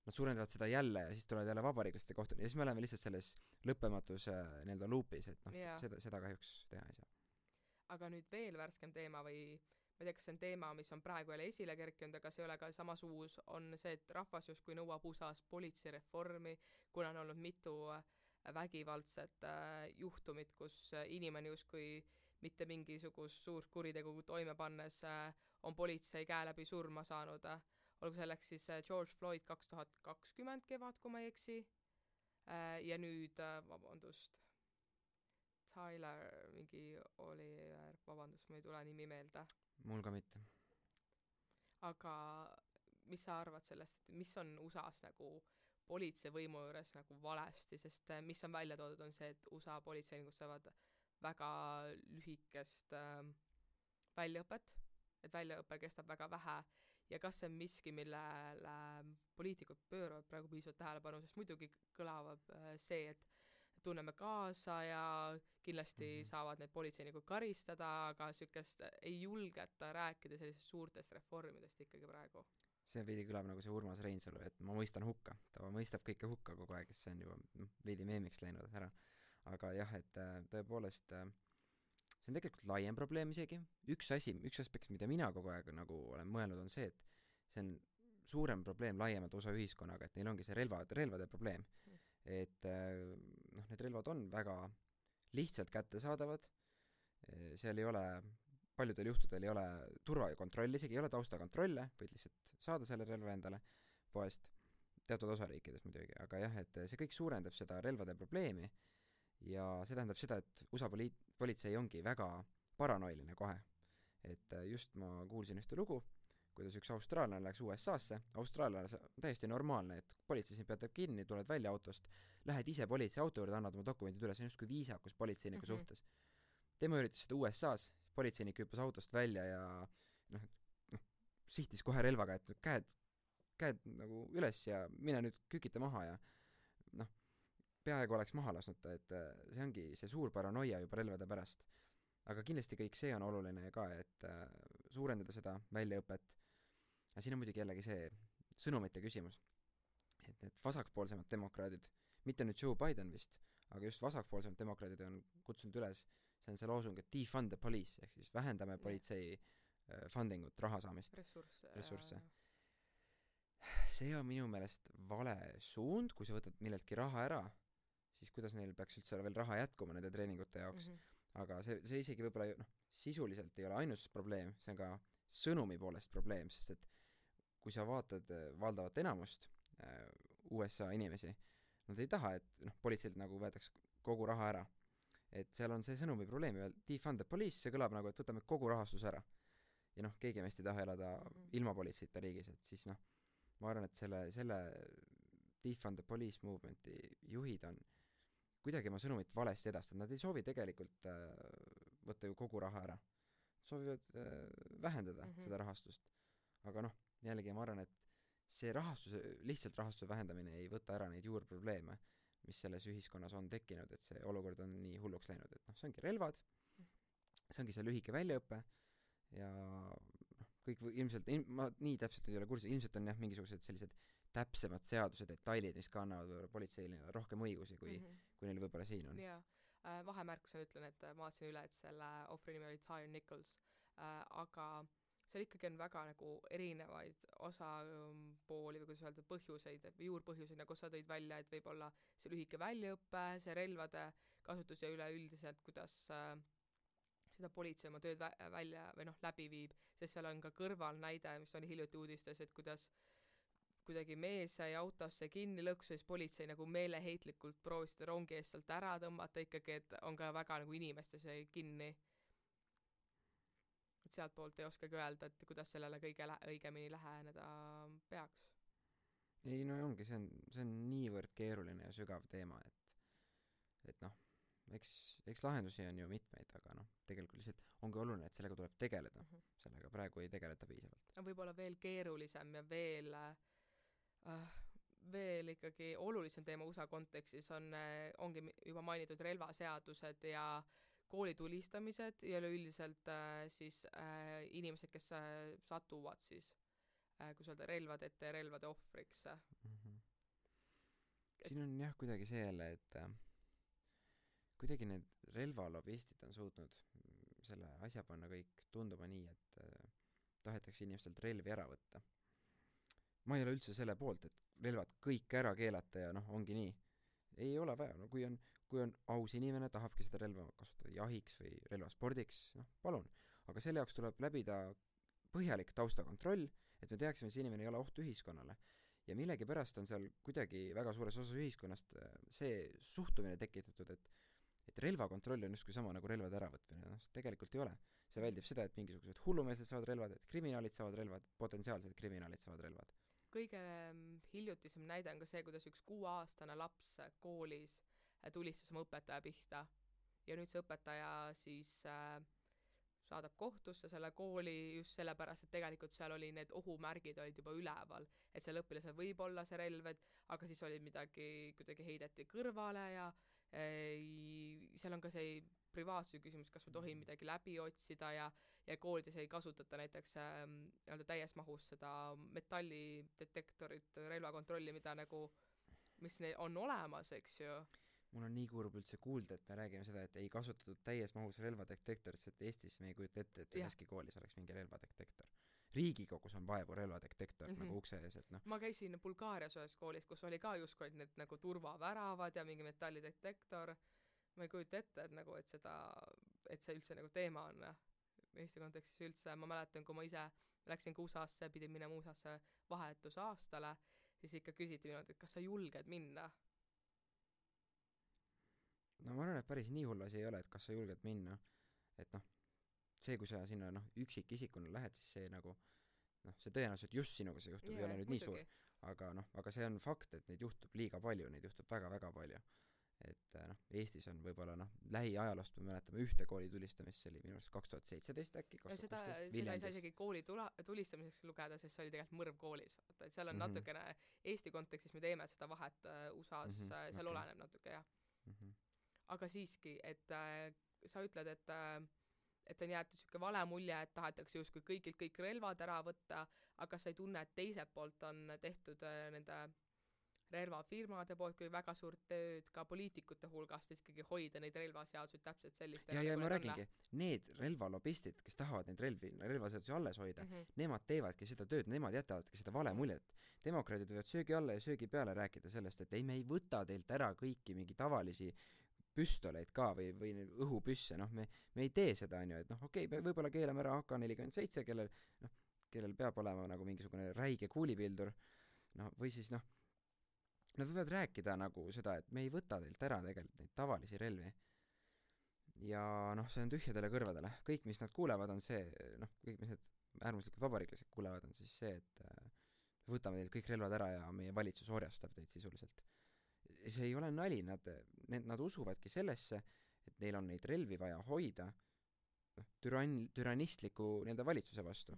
nad suurendavad seda jälle ja siis tulevad jälle vabariiklaste kohtuni ja siis me oleme lihtsalt selles lõppematus nii-öelda loopis, et seda kahjuks teha ei saa. Aga nüüd veel värskem teema või ma ei tea, kas see on teema, mis on praegu jälle esile kerkinud, aga see ei ole ka samas uus, on see, et rahvas justkui nõuab USA-s politseireformi, kuna on olnud mitu vägivaldset juhtumit, kus inimene justkui mitte mingisugust suurt kuritegu toime pannes on politsei käe läbi surma saanud. Olgu selleks siis George Floyd 2020 kevad, kui ma ei eksi. Ja nüüd, Tyler mingi Oliver, ma ei tule nimi meelde. Mul ka mitte. Aga mis sa arvad sellest, et mis on USA-s nagu politseivõimu juures nagu valesti, sest mis on välja toodud, on see, et USA politseinikud saavad väga lühikest väljaõpet, et väljaõpe kestab väga vähe ja kas see on miski, millele poliitikud pööravad praegu piisavalt tähelepanu, sest muidugi kõlavab see, et tunneme kaasa ja kindlasti saavad need politseinikud karistada, aga sükest ei julgeta rääkida sellisest suurtest reformidest ikkagi praegu. See veidi kõlab nagu see Urmas Reinsalu, et ma mõistan hukka. Ta mõistab kõike hukka kogu aeg, kes see on juba veidi meemiks läinud ära. Aga jah, et tõepoolest see on tegelikult laiem probleem isegi. Üks aspekt, mida mina kogu aeg nagu olen mõelnud, on see, et see on suurem probleem laiemalt osa ühiskonnaga, et neil ongi see relvade probleem. Et need relvad on väga lihtsalt kättesaadavad, seal ei ole, paljudel juhtudel ei ole turvakontrolli, isegi ei ole taustakontrolle, võid lihtsalt saada selle relva endale poest, teatud osariikides muidugi, aga jah, et see kõik suurendab seda relvade probleemi ja see tähendab seda, et USA politsei ongi väga paranoiline kohe. Et just ma kuulsin ühte lugu, kuidas üks austraallane läks USA-sse, austraallane on täiesti normaalne, et politsei siin peatab kinni, tuled välja autost, lähed ise politsei auto juurde, annad oma dokumendid üle, see on just kui viisakus politseiniku suhtes. Tema üritas seda USA-s, politseinik hüppas autost välja ja sihtis kohe relvaga, et käed nagu üles ja mine nüüd kükita maha ja peaaegu oleks maha lasnud ta, et see ongi see suur paranoia juba relvade pärast. Aga kindlasti kõik see on oluline ka, et suurendada seda väljaõpet. Ja siin on muidugi jällegi see sõnumite küsimus, et need vasakpoolsemad demokraadid, mitte nüüd Joe Biden vist, aga just vasakpoolsemad demokraadid on kutsunud üles, see on see loosung, et defund the police, ehk siis vähendame politsei fundingut, raha saamist, ressursse. See on minu meelest vale suund, kui sa võtad milleltki raha ära, siis kuidas neil peaks üldse veel raha jätkuma nende treeningute jaoks. Aga see isegi võib-olla sisuliselt ei ole ainus probleem, see on ka sõnumi poolest probleem, sest et kui sa vaatad valdavat enamust USA inimesi, nad ei taha, et politseilt nagu võetaks kogu raha ära. Et seal on see sõnumi probleem, defund the police, see kõlab nagu, et võtame kogu rahastus ära. Ja keegi meist ei taha elada ilma politseita riigis, et siis ma arvan, et selle defund the police movementi juhid on kuidagi oma sõnumit valesti edastada. Nad ei soovi tegelikult võtta ju kogu raha ära. Soovivad vähendada seda rahastust. Aga jällegi ma arvan, et see lihtsalt rahastuse vähendamine ei võta ära neid juurprobleeme, mis selles ühiskonnas on tekkinud, et see olukord on nii hulluks läinud, et see ongi relvad, see ongi see lühike väljaõpe ja kõik ilmselt, ma nii täpselt ei ole kursis, ilmselt on mingisugused sellised täpsemad seaduse detailid, mis ka annavad politseile rohkem õigusi, kui neil võib-olla siin on. Jaa, vahemärkusena ütlen, et ma vaatasin üle, et selle ohvri nimi oli Tyre Nichols, aga seal ikkagi on väga nagu erinevaid osapooli või kuidas öelda põhjuseid, juurpõhjuseid, nagu sa tõid välja, et võib-olla see lühike väljaõppe, see relvade kasutus ja üleüldiselt, kuidas seda politsei oma tööd välja või läbi viib, sest seal on ka kõrval näide, mis oli hiljuti uudistes, et kuidas kuidagi mees sai autosse kinni lõksu, siis politsei nagu meeleheitlikult proovis seda rongi eest sealt ära tõmmata ikkagi, et on ka väga nagu inimestes kinni. Et sealt poolt ei oskagi öelda, et kuidas sellele kõige õigemini läheneda peaks. ei no ongi, see on niivõrd keeruline ja sügav teema, et noh, eks lahendusi on ju mitmeid, aga noh, tegelikult lihtsalt ongi oluline, et sellega tuleb tegeleda. Sellega praegu ei tegeleta piisavalt. Võib-olla veel keerulisem ja veel ikkagi olulisem teema USA kontekstis ongi juba mainitud relvaseadused ja koolitulistamised ja üleüldiselt siis inimesed, kes satuvad siis kui öelda, relvade ette ja relvade ohvriks. Siin on jah kuidagi see jälle, et kuidagi need relvalobistid on suutnud selle asja panna kõik tunduma nii, et tahetakse inimestelt relvi ära võtta. Ma ei ole üldse selle poolt, et relvad kõik ära keelata ja noh, ongi nii. Ei ole vaja, no kui on aus inimene, tahabki seda relva kasutada jahiks või relvaspordiks, noh, palun. Aga selle jaoks tuleb läbida põhjalik taustakontroll, et me teaksime, et see inimene ei ole oht ühiskonnale. Ja millegipärast on seal kuidagi väga suures osas ühiskonnast see suhtumine tekitatud, et relvakontroll on justkui sama nagu relvade äravõtmine. No, tegelikult ei ole. See väldib seda, et mingisugused hullumeelsed saavad relvad, et kriminaalid saavad relvad, potentsiaalsed kriminaalid saavad relvad. Kõige hiljutisem näide on ka see, kuidas üks 6-aastane laps koolis tulistas oma õpetaja pihta ja nüüd see õpetaja siis saadab kohtusse selle kooli just sellepärast, et tegelikult seal oli need ohumärgid olid juba üleval, et seal õpilasel võib olla see relv, aga siis oli midagi kuidagi heideti kõrvale ja seal on ka see privaatsuse küsimus, kas me tohime midagi läbi otsida ja koolides ei kasutata näiteks täies mahus seda metallidetektorit, relvakontrolli, mida nagu, mis on olemas, eks ju. Mul on nii kurb üldse kuulda, et me räägime seda, et ei kasutatud täies mahus relvadetektorit, et Eestis me ei kujuta ette, et üheski koolis oleks mingi relvadetektor. Riigikogus on vaevu relvadetektor nagu ukse ees, et noh. Ma käisin Bulgaarias ühes koolis, kus oli ka justkui need nagu turvaväravad ja mingi metallidetektor. Ma ei kujuta ette, et see üldse nagu teema on Eesti kontekstis üldse. Ma mäletan, kui ma ise läksin USA-sse, pidin minema USA-sse vahetusaastale, siis ikka küsiti minult, et kas sa julged minna? No ma arvan, et päris nii hull asi ei ole, et kas sa julged minna. Et noh, see, kui sa sinna üksikisikuna lähed, siis see nagu see tõenäoliselt just sinuga see juhtub, ei ole nüüd nii suur. Aga see on fakt, et neid juhtub liiga palju, neid juhtub väga-väga palju. Et Eestis on võib-olla lähiajaloost me mäletame ühte kooli tulistamist, see oli minu arust 2017 äkki, 2016 seda ei saa isegi kooli tulistamiseks lugeda, sest see oli tegelikult mõrv koolis. Et seal on natukene Eesti kontekstis me teeme seda vahet USA-s, seal oleneb natuke, jah. Aga siiski, et sa ütled, et on jäetud siuke vale mulje, et tahetakse justkui kõigilt kõik relvad ära võtta, aga sa ei tunne, et teiselt poolt on tehtud nende relvafirmade poolt kui väga suurt tööd ka poliitikute hulgast ikkagi hoida neid relvaseadusi täpselt sellist. Ja ma räägingi, need relvalobistid, kes tahavad neid relvaseadusi alles hoida, nemad teevadki seda tööd, nemad jätavadki seda vale muljet. Demokraadid võivad söögi alla ja söögi peale rääkida sellest, et ei, me ei võta teilt ära kõiki mingi tavalisi püstoleid ka või õhupüsse, me ei tee seda, on ju, et okei, võib-olla keelame ära AK-47, kellel peab olema nagu mingisugune räige kuulipildur, või siis nad võivad rääkida nagu seda, et me ei võta teilt ära tegelikult neid tavalisi relvi. Ja see on tühjadele kõrvadele. Kõik, mis nad kuulevad, on see, kõik, mis need äärmuslikud vabariiklased kuulevad, on siis see, et võtame teilt kõik relvad ära ja meie valitsus orjastab teid sisuliselt. See ei ole nali, nad usuvadki sellesse, et neil on neid relvi vaja hoida türannistliku valitsuse vastu.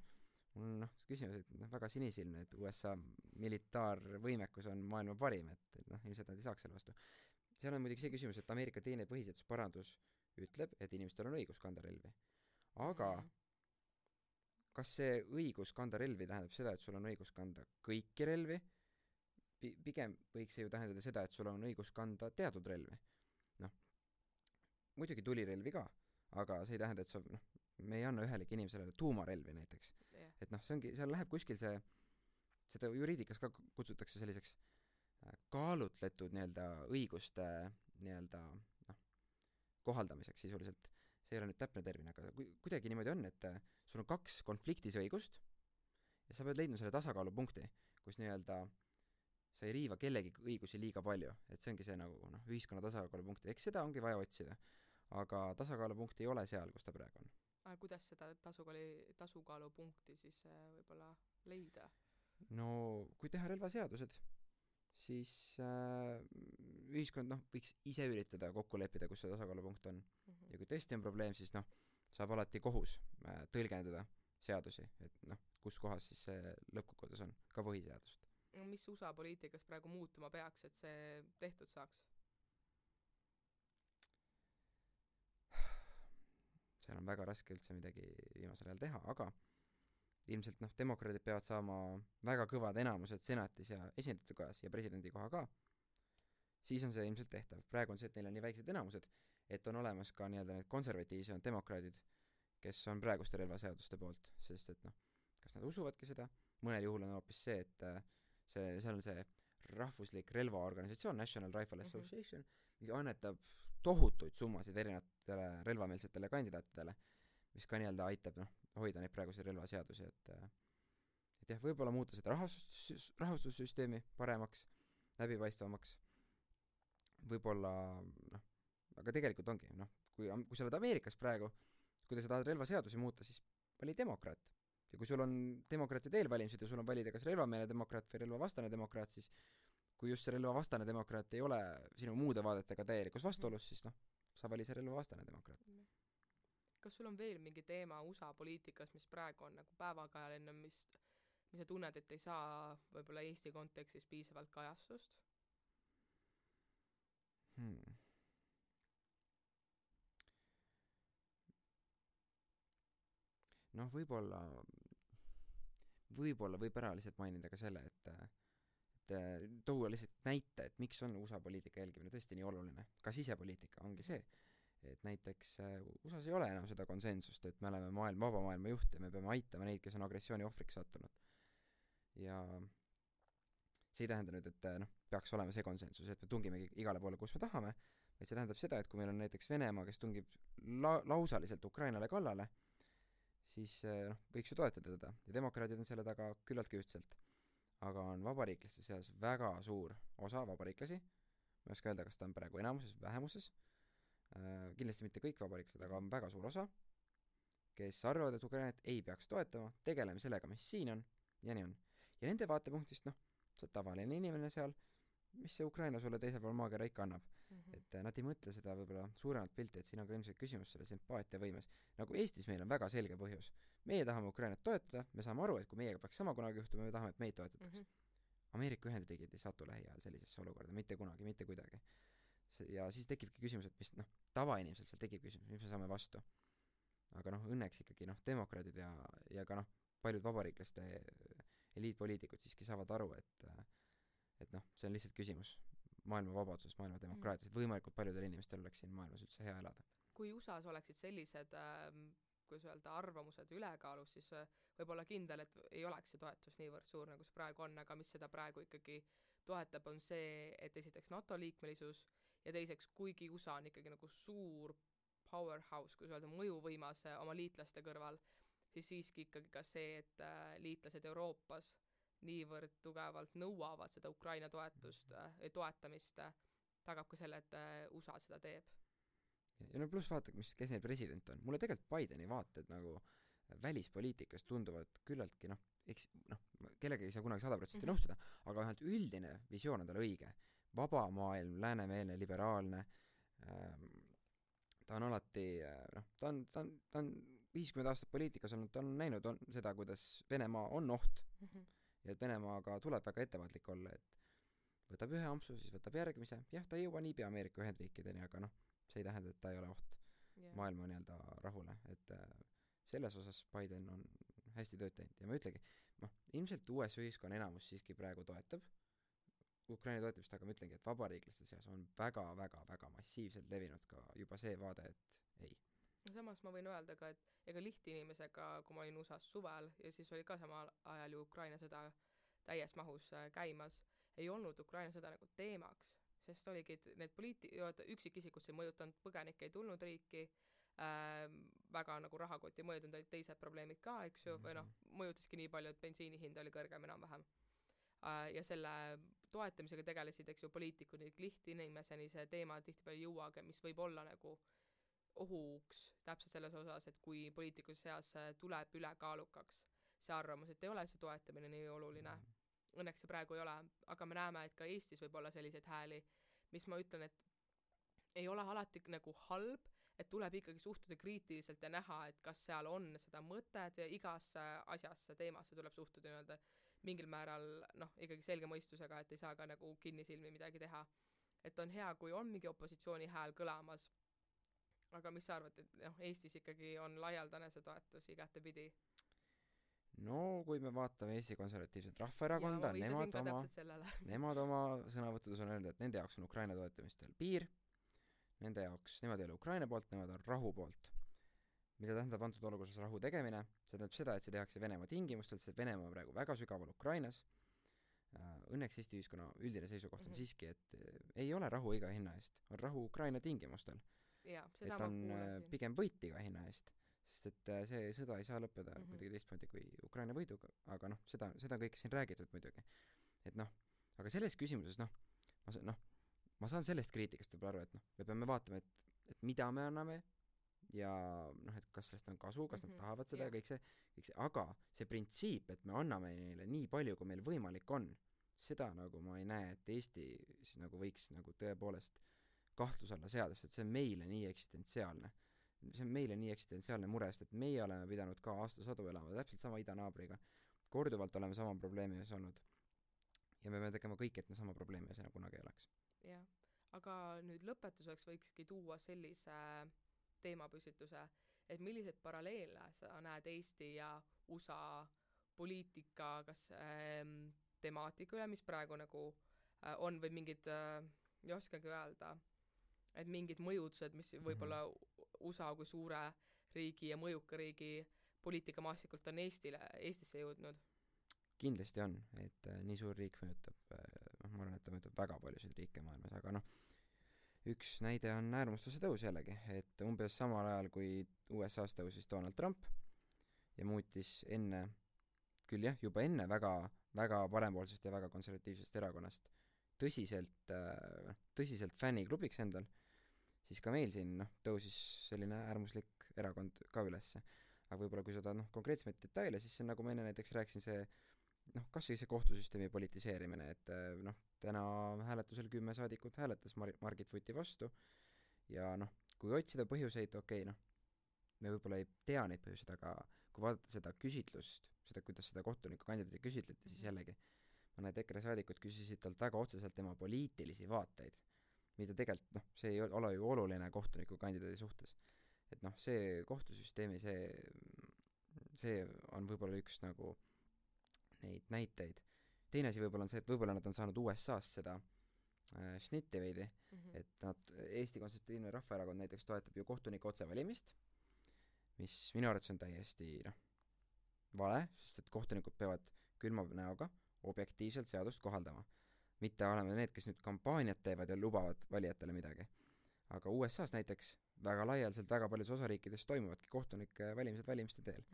Mul on küsimus, et väga sinisilmne, et USA militaarvõimekus on maailma parim, et ilmselt nad ei saaks selle vastu. Seal on muidugi see küsimus, et Ameerika teine põhiseadusparandus ütleb, et inimestel on õigus kanda relvi. Aga kas see õigus kanda relvi tähendab seda, et sul on õigus kanda kõiki relvi? Pigem võiks see ju tähendada seda, et sul on õigus kanda teatud relvi. Muidugi tulirelvi ka, aga see ei tähenda, et me ei anna ühelegi inimesele tuumarelvi näiteks. Et see ongi, seal läheb kuskil seda juriidikas ka kutsutakse selliseks kaalutletud õiguste kohaldamiseks sisuliselt. See ei ole nüüd täpne termin, aga kuidagi niimoodi on, et sul on 2 konfliktis õigust ja sa pead leidma selle tasakaalupunkti, kus sa ei riiva kellegi õigusi liiga palju, et see ongi see ühiskonna tasakaalupunkt, eks seda ongi vaja otsida, aga tasakaalupunkt ei ole seal, kus ta praegu on. Aga kuidas seda tasakaalupunkti siis võib-olla leida? No, kui teha relvaseadused, siis ühiskond võiks ise üritada kokku leppida, kus see tasakaalupunkt on. Ja kui tõesti on probleem, siis saab alati kohus tõlgendada seadusi, et kus kohas siis see lõppkokkuvõttes on, ka põhiseadust. Mis USA poliitikas praegu muutuma peaks, et see tehtud saaks? Seal on väga raske üldse midagi viimasel ajal teha, aga ilmselt demokraadid peavad saama väga kõvad enamused senatis ja esindajate kojas ja presidendi koha ka, siis on see ilmselt tehtav. Praegu on see, et neil on nii väiksed enamused, et on olemas ka nii-öelda need konservatiivsed demokraadid, kes on praeguste relvaseaduste poolt, sest et kas nad usuvadki seda, mõnel juhul on hoopis see, et seal on see rahvuslik relvaorganisatsioon National Rifle Association, mis annetab tohutuid summasid erinevatele relvameelsetele kandidaatidele, mis ka nii-öelda aitab hoida neid praeguseid relvaseadusi, et jah, võib-olla muuta seda rahastussüsteemi paremaks, läbipaistvamaks, võib-olla aga tegelikult ongi, kui sa oled Ameerikas praegu, kui sa tahad relvaseadusi muuta, siis vali demokraat. Ja kui sul on demokraatide eelvalimised ja sul on valida kas relvameelne demokraat või relvavastane demokraat, siis kui just see relvavastane demokraat ei ole sinu muude vaadetega täielikus vastuolus, siis sa vali see relvavastane demokraat. Kas sul on veel mingi teema USA poliitikas, mis praegu on nagu päevakajaline, mis sa tunned, et ei saa võib-olla Eesti kontekstis piisavalt kajastust? Võib-olla võib ära lihtsalt mainida ka selle, et tuua lihtsalt näite, et miks on USA poliitika jälgimine tõesti nii oluline. Ka sisepoliitika ongi see, et näiteks USAs ei ole enam seda konsensust, et me oleme vaba maailma juht ja me peame aitama neid, kes on agressiooni ohvriks sattunud. Ja see ei tähenda nüüd, et peaks olema see konsensus, et me tungimegi igale poole, kus me tahame, et see tähendab seda, et kui meil on näiteks Venemaa, kes tungib lausaliselt Ukrainale kallale, siis võiks ju toetada teda. Ja demokraadid on selle taga küllaltki ühtselt. Aga on vabariiklaste seas väga suur osa vabariiklasi, ma ei oska öelda, kas ta on praegu enamuses või vähemuses, kindlasti mitte kõik vabariiklased, aga on väga suur osa, kes arvavad, et Ukrainat ei peaks toetama, tegeleme sellega, mis siin on, ja nii on. Ja nende vaatepunktist, sa oled tavaline inimene seal, mis see Ukraina sulle teisel pool maakera ikka annab. Et nad ei mõtle seda võib-olla suuremat pilti, et siin on ka ilmselt küsimus selle sümpaatiavõimes. Nagu Eestis meil on väga selge põhjus. Meie tahame Ukrainat toetada, me saame aru, et kui meiega peaks sama kunagi juhtuma, me tahame, et meid toetatakse. Ameerika Ühendriigid ei satu lähiajal sellisesse olukorda, mitte kunagi, mitte kuidagi. Ja siis tekibki küsimus, et mis tavainimesel seal tekib küsimus, mis me saame vastu. Aga õnneks ikkagi demokraadid ja ka paljud vabariiklaste eliitpoliitikud siiski saavad aru, et see on lihtsalt küsimus maailma vabadusest, maailma demokraatiast, et võimalikult paljudel inimestel oleks siin maailmas üldse hea elada. Kui USAs oleksid sellised, kuidas öelda, arvamused ülekaalus, siis võib-olla kindel, et ei oleks see toetus niivõrd suur, nagu see praegu on, aga mis seda praegu ikkagi toetab, on see, et esiteks NATO liikmelisus ja teiseks, kuigi USA on ikkagi nagu suur powerhouse, kui öelda, mõjuvõimas oma liitlaste kõrval, siis siiski ikkagi ka see, et liitlased Euroopas niivõrd tugevalt nõuavad seda Ukraina toetamist, tagab ka selle, et USA seda teeb. Ja pluss vaata, kes neil president on. Mulle tegelikult Bideni vaated välispoliitikas tunduvad küllaltki, kellegagi ei saa kunagi 100% nõustuda, aga vähemalt üldine visioon on tal õige. Vaba maailm, läänemeelne, liberaalne, ta on alati, ta on 50 aastat poliitikas olnud, ta on näinud seda, kuidas Venemaa on oht ja et Venemaaga tuleb väga ettevaatlik olla, et võtab ühe ampsu, siis võtab järgmise. Jah, ta ei jõua niipea Ameerika Ühendriikideni, aga see ei tähenda, et ta ei ole oht maailma nii-öelda rahule. Et selles osas Biden on hästi tööd teinud. Ja ma ütlegi, ilmselt US ühiskonna enamus siiski praegu toetab Ukraina toetamist, aga ma ütlengi, et vabariiklaste seas on väga massiivselt levinud ka juba see vaade, et ei. Samas ma võin öelda ka, et ega lihtinimesega, kui ma olin USAs suvel ja siis oli ka samal ajal ju Ukraina sõda täies mahus käimas, ei olnud Ukraina sõda nagu teemaks, sest oligi, et need üksikisikud see mõjutanud, põgenik ei tulnud riiki, väga nagu rahakoti mõjutanud, olid teised probleemid ka, eks ju, või mõjutaski nii palju, et bensiini hind oli kõrgem enam-vähem. Ja selle toetamisega tegelesid, eks ju, poliitikud, lihtinimeseni see teema tihtipeale ei jõuagi, mis võib olla nagu ohuks täpselt selles osas, et kui poliitikus seas tuleb ülekaalukaks see arvamus, et ei ole see toetamine nii oluline õnneks see praegu ei ole, aga me näeme, et ka Eestis võib olla selliseid hääli, mis ma ütlen, et ei ole alati nagu halb, et tuleb ikkagi suhtuda kriitiliselt ja näha, et kas seal on seda mõtet ja igasse asjasse, teemasse tuleb suhtuda nii-öelda mingil määral ikkagi selge mõistusega, et ei saa ka nagu kinnisilmi midagi teha. Et on hea, kui on mingi opositsiooni hääl kõlamas, aga mis sa arvad, et Eestis ikkagi on laialdane see toetus igatepidi? No kui me vaatame Eesti Konservatiivset Rahvaerakonda, nemad oma sõnavõttudes on öelnud, et nende jaoks on Ukraina toetamistel piir, nende jaoks, nemad ei ole Ukraina poolt, nemad on rahu poolt. Mida tähendab antud olukorras rahu tegemine? See tähendab seda, et see tehakse Venemaa tingimustel, see Venemaa on praegu väga sügaval Ukrainas. Õnneks Eesti ühiskonna üldine seisukoht on siiski, et ei ole rahu iga hinna eest, on rahu Ukraina tingimustel. Et on pigem võit iga hinna eest, sest et see sõda ei saa lõppeda kuidagi teistmoodi kui Ukraina võiduga, aga seda kõik siin räägitud muidugi. Et aga selles küsimuses ma saan sellest kriitikast võib aru, et me peame vaatama, et mida me anname ja et kas sellest on kasu, kas nad tahavad seda ja kõik see, aga see printsiip, et me anname neile nii palju, kui meil võimalik on, seda nagu ma ei näe, et Eesti siis nagu võiks nagu tõepoolest kahtlus alla seada, sest see on meile nii eksistentsiaalne. See on meile nii eksistentsiaalne mure, sest et meie oleme pidanud ka aastasadu elama täpselt sama idanaabriga. Korduvalt oleme sama probleemi ees olnud. Ja me peame tegema kõik, et me sama probleemi ees enam kunagi ei oleks. Jah, aga nüüd lõpetuseks võikski tuua sellise teemapüstituse, et milliseid paralleele sa näed Eesti ja USA poliitika, kas temaatika üle, mis praegu nagu on või mingid, ei oskagi öelda, et mingid mõjutused, mis võib-olla USA kui suure riigi ja mõjuka riigi poliitikamaasikult on Eestisse jõudnud? Kindlasti on, et nii suur riik mõjutab, ma arvan, et ta mõjutab väga paljusid riike maailmas, aga üks näide on äärmustuse tõus jällegi, et umbes samal ajal, kui USA-s tõusis Donald Trump ja muutis küll jah, juba enne väga parempoolsest ja väga konservatiivsest erakonnast tõsiselt fänniklubiks endal, siis ka meil siin tõusis selline äärmuslik erakond ka ülesse. Aga võib-olla kui seda konkreetsemaid detaile, siis see nagu ma enne näiteks rääkisin kas see kohtusüsteemi politiseerimine, et täna hääletusel 10 saadikut hääletas Margit Vuti vastu ja kui otsida põhjuseid, me võib-olla ei tea neid põhjuseid, aga kui vaadata seda küsitlust, kuidas seda kohtuniku kandidaati küsitleti, siis jällegi mõned EKRE saadikud küsisid talt väga otseselt tema poliitilisi vaateid, mida tegelikult, see ei ole ju oluline kohtuniku kandidaadi suhtes. Et see kohtusüsteemi, see on võib-olla üks nagu neid näiteid. Teine asi võib-olla on see, et võib-olla nad on saanud USA-st seda šnitti veidi, et Eesti Konservatiivne Rahvaerakond näiteks toetab ju kohtuniku otsevalimist, mis minu arvates on täiesti vale, sest et kohtunikud peavad külma näoga objektiivselt seadust kohaldama. Mitte olema need, kes nüüd kampaaniat teevad ja lubavad valijatele midagi. Aga USA-s näiteks väga laialdaselt väga paljus osariikides toimuvadki kohtunike valimised valimiste teel.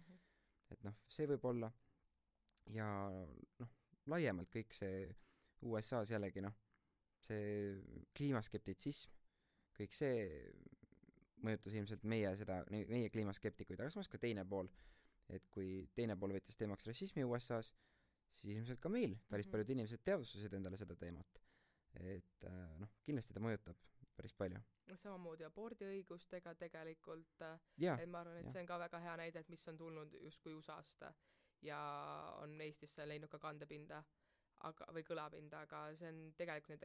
Et see võib olla ja laiemalt kõik see USA-s jällegi see kliimaskeptitsism, kõik see mõjutas ilmselt meie kliimaskeptikuid, aga samas ka teine pool, et kui teine pool võttis teemaks rassismi USA-s, siis ilmselt ka meil päris paljud inimesed teadvustasid endale seda teemat. Et kindlasti ta mõjutab päris palju. Samamoodi abordiõigustega tegelikult, et ma arvan, et see on ka väga hea näide, et mis on tulnud justkui USA-st ja on Eestisse leidnud ka kandepinda või kõlapinda, aga see on tegelikult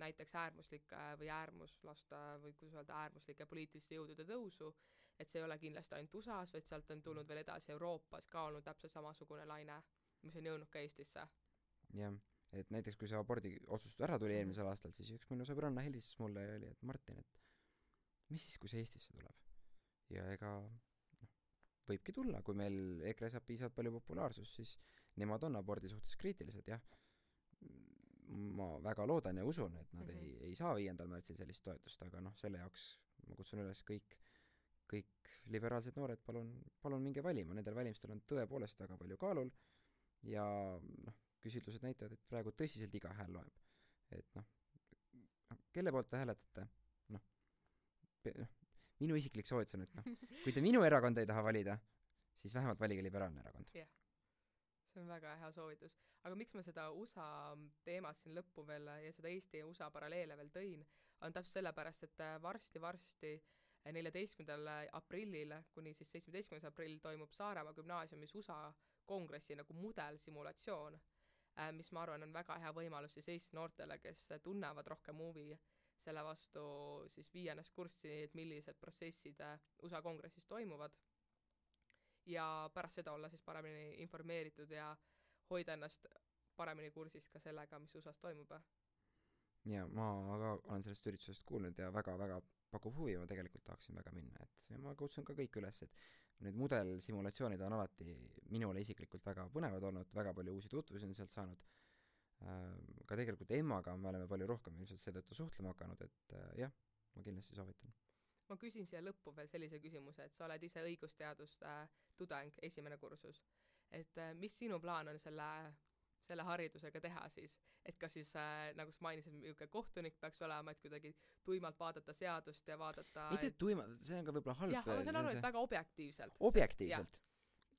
näiteks äärmuslike või äärmuslaste või kuidas öelda äärmuslike poliitiliste jõudude tõusu, et see ei ole kindlasti ainult USA-s, vaid sealt on tulnud veel edasi Euroopas ka olnud täpselt samasugune laine, mis on jõudnud ka Eestisse. Jah, et näiteks kui see abordi otsustus ära tuli eelmisel aastal, siis üks minu sõbranna helistas mulle ja oli, et Martin, et mis siis, kui see Eestisse tuleb? Ja ega võibki tulla, kui meil EKRE saab piisavalt palju populaarsust, siis nemad on abordi suhtes kriitilised, jah. Ma väga loodan ja usun, et nad ei saa 5. märtsil sellist toetust, aga selle jaoks ma kutsun üles kõik liberaalsed noored, palun minge valima, nendel valimistel on tõepoolest väga palju kaalul ja küsitlused näitavad, et praegu tõsiselt iga hääl loeb. Et kelle poolt te hääletate? Minu isiklik soovitus on, et kui te minu erakond ei taha valida, siis vähemalt valige liberaalne erakond. Jah, see on väga hea soovitus. Aga miks ma seda USA teemat siin lõppu veel ja seda Eesti ja USA paralleele veel tõin, on täpselt sellepärast, et varsti 14. aprillil kuni siis 17. aprill toimub Saaremaa gümnaasiumis USA kongressi nagu mudelsimulatsioon, mis ma arvan on väga hea võimalus siis Eesti noortele, kes tunnevad rohkem huvi selle vastu siis viia ennast kurssi, et millised protsessid USA kongressis toimuvad ja pärast seda olla siis paremini informeeritud ja hoida ennast paremini kursis ka sellega, mis USA's toimub. Ja ma ka olen sellest üritusest kuulnud ja väga-väga pakub huvi, ma tegelikult tahaksin väga minna, et ja ma kutsun ka kõik üles, et need mudelsimulatsioonid on alati minule isiklikult väga põnevad olnud, väga palju uusi tutvusi on sealt saanud. Ka tegelikult Emmaga me oleme palju rohkem ilmselt seetõttu suhtlema hakanud, et jah, ma kindlasti soovitan. Ma küsin siia lõppu veel sellise küsimuse, et sa oled ise õigusteaduste tudeng, esimene kursus. Et mis sinu plaan on selle haridusega teha siis? Et kas siis, nagu sa mainisid, niisugune kohtunik peaks olema, et kuidagi tuimalt vaadata seadust ja vaadata... Mitte tuimalt, see on ka võib-olla halb. Jah, aga see on aru, et väga objektiivselt. Objektiivselt.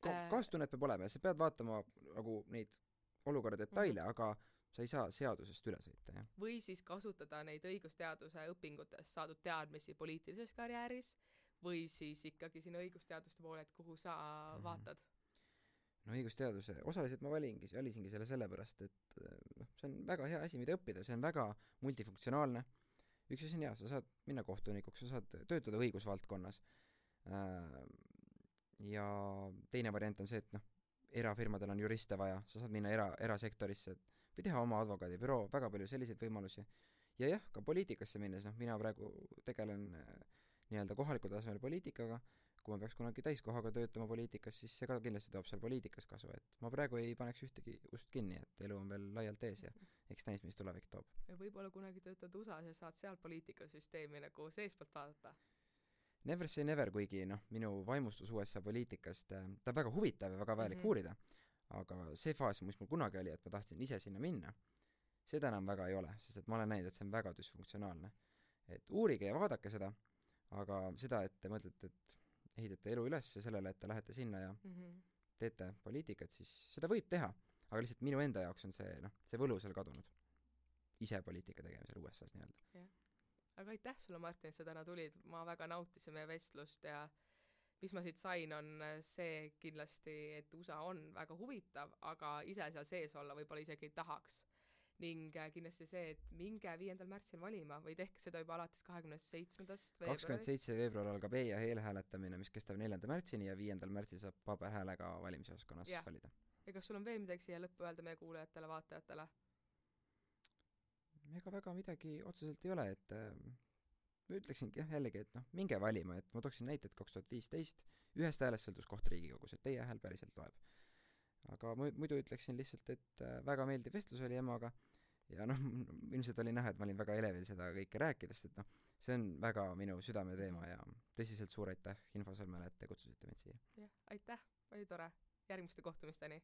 Kaastunnet peab olema ja sa pead vaatama nagu neid olukorra detaile, aga sa ei saa seadusest üle sõita, jah. Või siis kasutada neid õigusteaduse õpingutes saadud teadmisi poliitilises karjääris või siis ikkagi sinna õigusteaduste poole, et kuhu sa vaatad? No õigusteaduse, osaliselt ma valisingi selle sellepärast, et see on väga hea asi, mida õppida, see on väga multifunktsionaalne. Üks asi on hea, sa saad minna kohtunikuks, sa saad töötada õigusvaldkonnas. Ja teine variant on see, et erafirmadel on juriste vaja, sa saad minna erasektorisse või teha oma advokaadibüroo, väga palju selliseid võimalusi. Ja jah, ka poliitikasse minnes, mina praegu tegelen nii-öelda kohalikul tasemel poliitikaga, kui ma peaks kunagi täiskohaga töötama poliitikas, siis see ka kindlasti toob seal poliitikas kasu, et ma praegu ei paneks ühtegi ust kinni, et elu on veel laialt ees ja eks näis, mis tulevik toob. Ja võib-olla kunagi töötad USA-s ja saad seal poliitikasüsteemi nagu seespalt vaadata. Never say never, kuigi minu vaimustus USA poliitikast, ta on väga huvitav ja väga vajalik uurida, aga see faas, mis mul kunagi oli, et ma tahtsin ise sinna minna, seda enam väga ei ole, sest et ma olen näinud, et see on väga düsfunktsionaalne. Et uurige ja vaadake seda, aga seda, et te mõtlete, et ehitate elu üles sellele, et te lähete sinna ja teete poliitikat, siis seda võib teha, aga lihtsalt minu enda jaoks on see võlu seal kadunud. Ise poliitika tegemisel USA-s nii-öelda. Yeah. Aga aitäh sulle, Martin, et sa täna tulid. Ma väga nautisin meie vestlust ja mis ma siit sain, on see kindlasti, et USA on väga huvitav, aga ise seal sees olla võib-olla isegi ei tahaks. Ning kindlasti see, et minge 5. märtsil valima või tehke seda juba alates 27. veebruarist. 27. veebruar algab ja eelhääletamine, mis kestab 4. märtsini ja 5. märtsil saab paberhäälega valimisjaoskonnas valida. Ja kas sul on veel midagi siia lõppu öelda meie kuulajatele, vaatajatele? Ega väga midagi otseselt ei ole, et ma ütleksingi jällegi, et minge valima, et ma tooksin näite, et 2015 ühest häälest sõltus koht Riigikogus, et teie hääl päriselt loeb. Aga muidu ütleksin lihtsalt, et väga meeldiv vestlus oli Emmaga ja ilmselt oli näha, et ma olin väga elevil seda kõike rääkidest, et see on väga minu südame teema ja tõsiselt suur aitäh Infosõlmele, et te kutsusite mind siia. Jah, aitäh, oli tore. Järgmiste kohtumisteni!